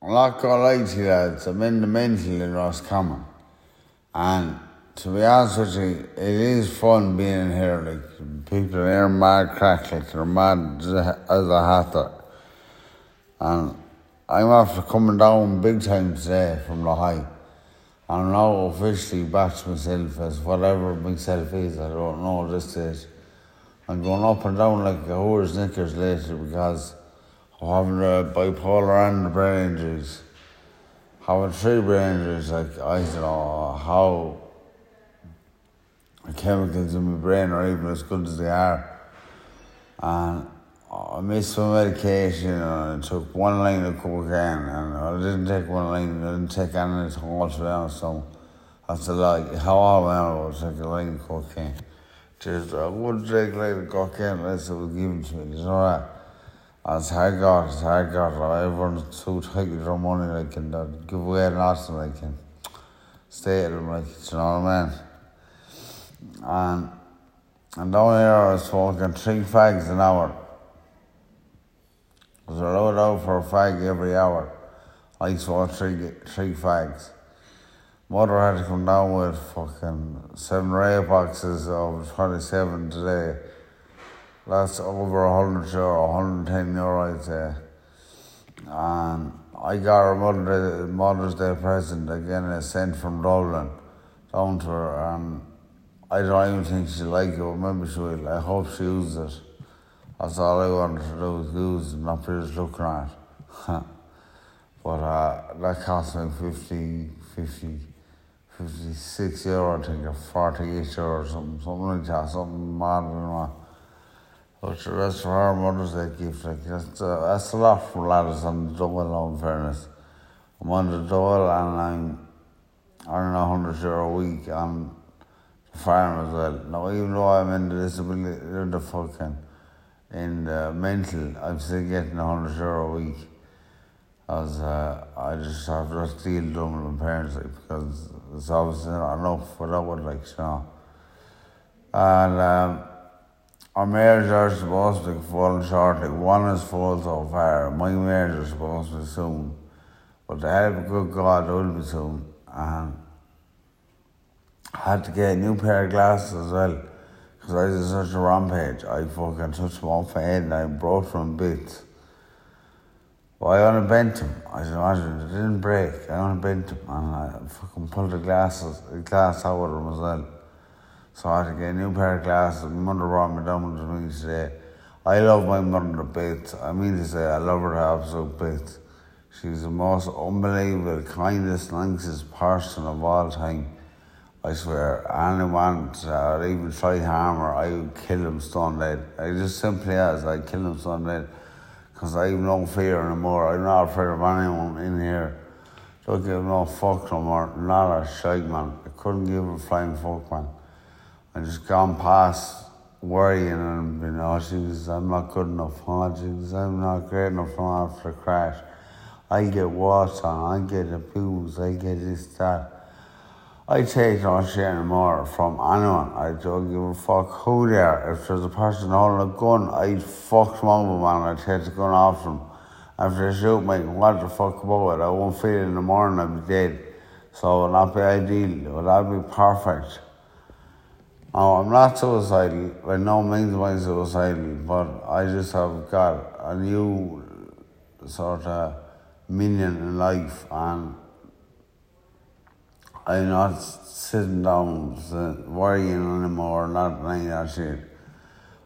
I'm not gonna lie to you lads, I'm in the mental in Roscommon. And to be honest with you, it is fun being in here. Like, people here are mad crack, like they're mad as a hatter. And I'm after coming down big time today from the high. I'm now officially back to myself as whatever myself is, I don't know at this stage. I'm going up and down like a horse knickers lately because I'm having the bipolar and the brain injuries. Having 3 brain injuries, like I don't know how the chemicals in my brain are even as good as they are. And I missed my medication and I took 1 line of cocaine and I didn't take 1 line, I didn't take anything all to be honest, so that's a lie. How old am I about to take a line of cocaine? Just, I wouldn't take a line of cocaine unless it was given to me, you know that? It's hard got. Everyone's too tight with their money, like, and they'd give away nothing, like, and stay at them, like, you know what I mean? And down here I was smoking 3 fags an hour. I was allowed out for a fag every hour. I smoked 3 fags. Mother had to come down with fucking 7 or 8 boxes of 27 today. That's over €100, €110, I'd say. And I got her Mother's Day present, again, a cent from Dublin down to her, and I don't even think she'll like it, but maybe she will. I hope she uses it. That's all I wanted to do was use it, not be just looking at it. But that cost me 56 euro, I think, or 48 euro, something like that, something mad than that. But that's for her Mother's Day gift. Like, that's a lot for lads on the double, in fairness. I'm on the double and I'm earning €100 a week on the farm as well. Now, even though I'm in the disability, in the mental, I'm still getting €100 a week. As I just have to steal Dublin parents, like, because it's obviously not enough without it, like, you know. And our marriage are supposed to be falling short, like 1 is full so far. My marriage is supposed to be soon. But the help of good God, it will be soon. And I had to get a new pair of glasses as well. Because I was such a rampage. I fucking touched my own head and I broke from bits. Well, I only bent them. I should imagine it didn't break. I only bent them. And I fucking pulled the glass out of them as well. So I had to get a new pair of glasses. My mother brought me down to me today. I love my mother to bits. I mean to say, I love her to absolute bits. She's the most unbelievable, kindest, nicest person of all time. I swear, anyone that even try harm her, I would kill him stone dead. I just simply I'd kill him stone dead. Because I have no fear anymore. I'm not afraid of anyone in here. Don't give no fuck no more. Not a shite, man. I couldn't give a flying fuck, man. I just gone past worrying and, you know, Jesus, I'm not good enough. Oh, Jesus, I'm not great enough after the crash. I get walked on, I get abused, I get this, that. I take no shit anymore from anyone. I don't give a fuck who they are. If there's a person holding a gun, I'd fuck them over, man. I'd take the gun off them. After they shoot me, what the fuck about it? I won't feel it in the morning, I'd be dead. So it would not be ideal. It would not be perfect. No, I'm not suicidal. By no means am I suicidal, but I just have got a new sort of meaning in life, and I'm not sitting down worrying anymore, not any of that shit.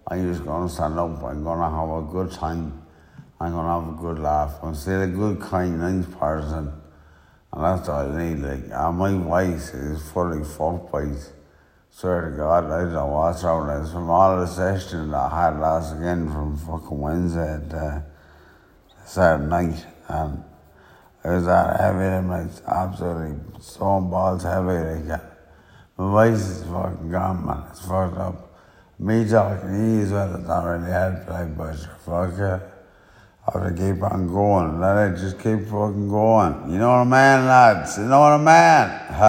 I'm just going to stand up. I'm going to have a good time. I'm going to have a good laugh. I'm still a good, kind, nice person, and that's all I need. Like, and my voice is fully fuck voice. Swear to God, I don't know what's wrong with this. From all the sessions that I had last again from fucking Wednesday to Saturday night, and it was that heavy, and like, absolutely stone balls heavy. Like, my voice is fucking gone, man. It's fucked up. Me talking to you as well, it's not really helping, like, but fuck it. I have to keep on going. Let it just keep fucking going. You know what I mean, lads? You know what I mean?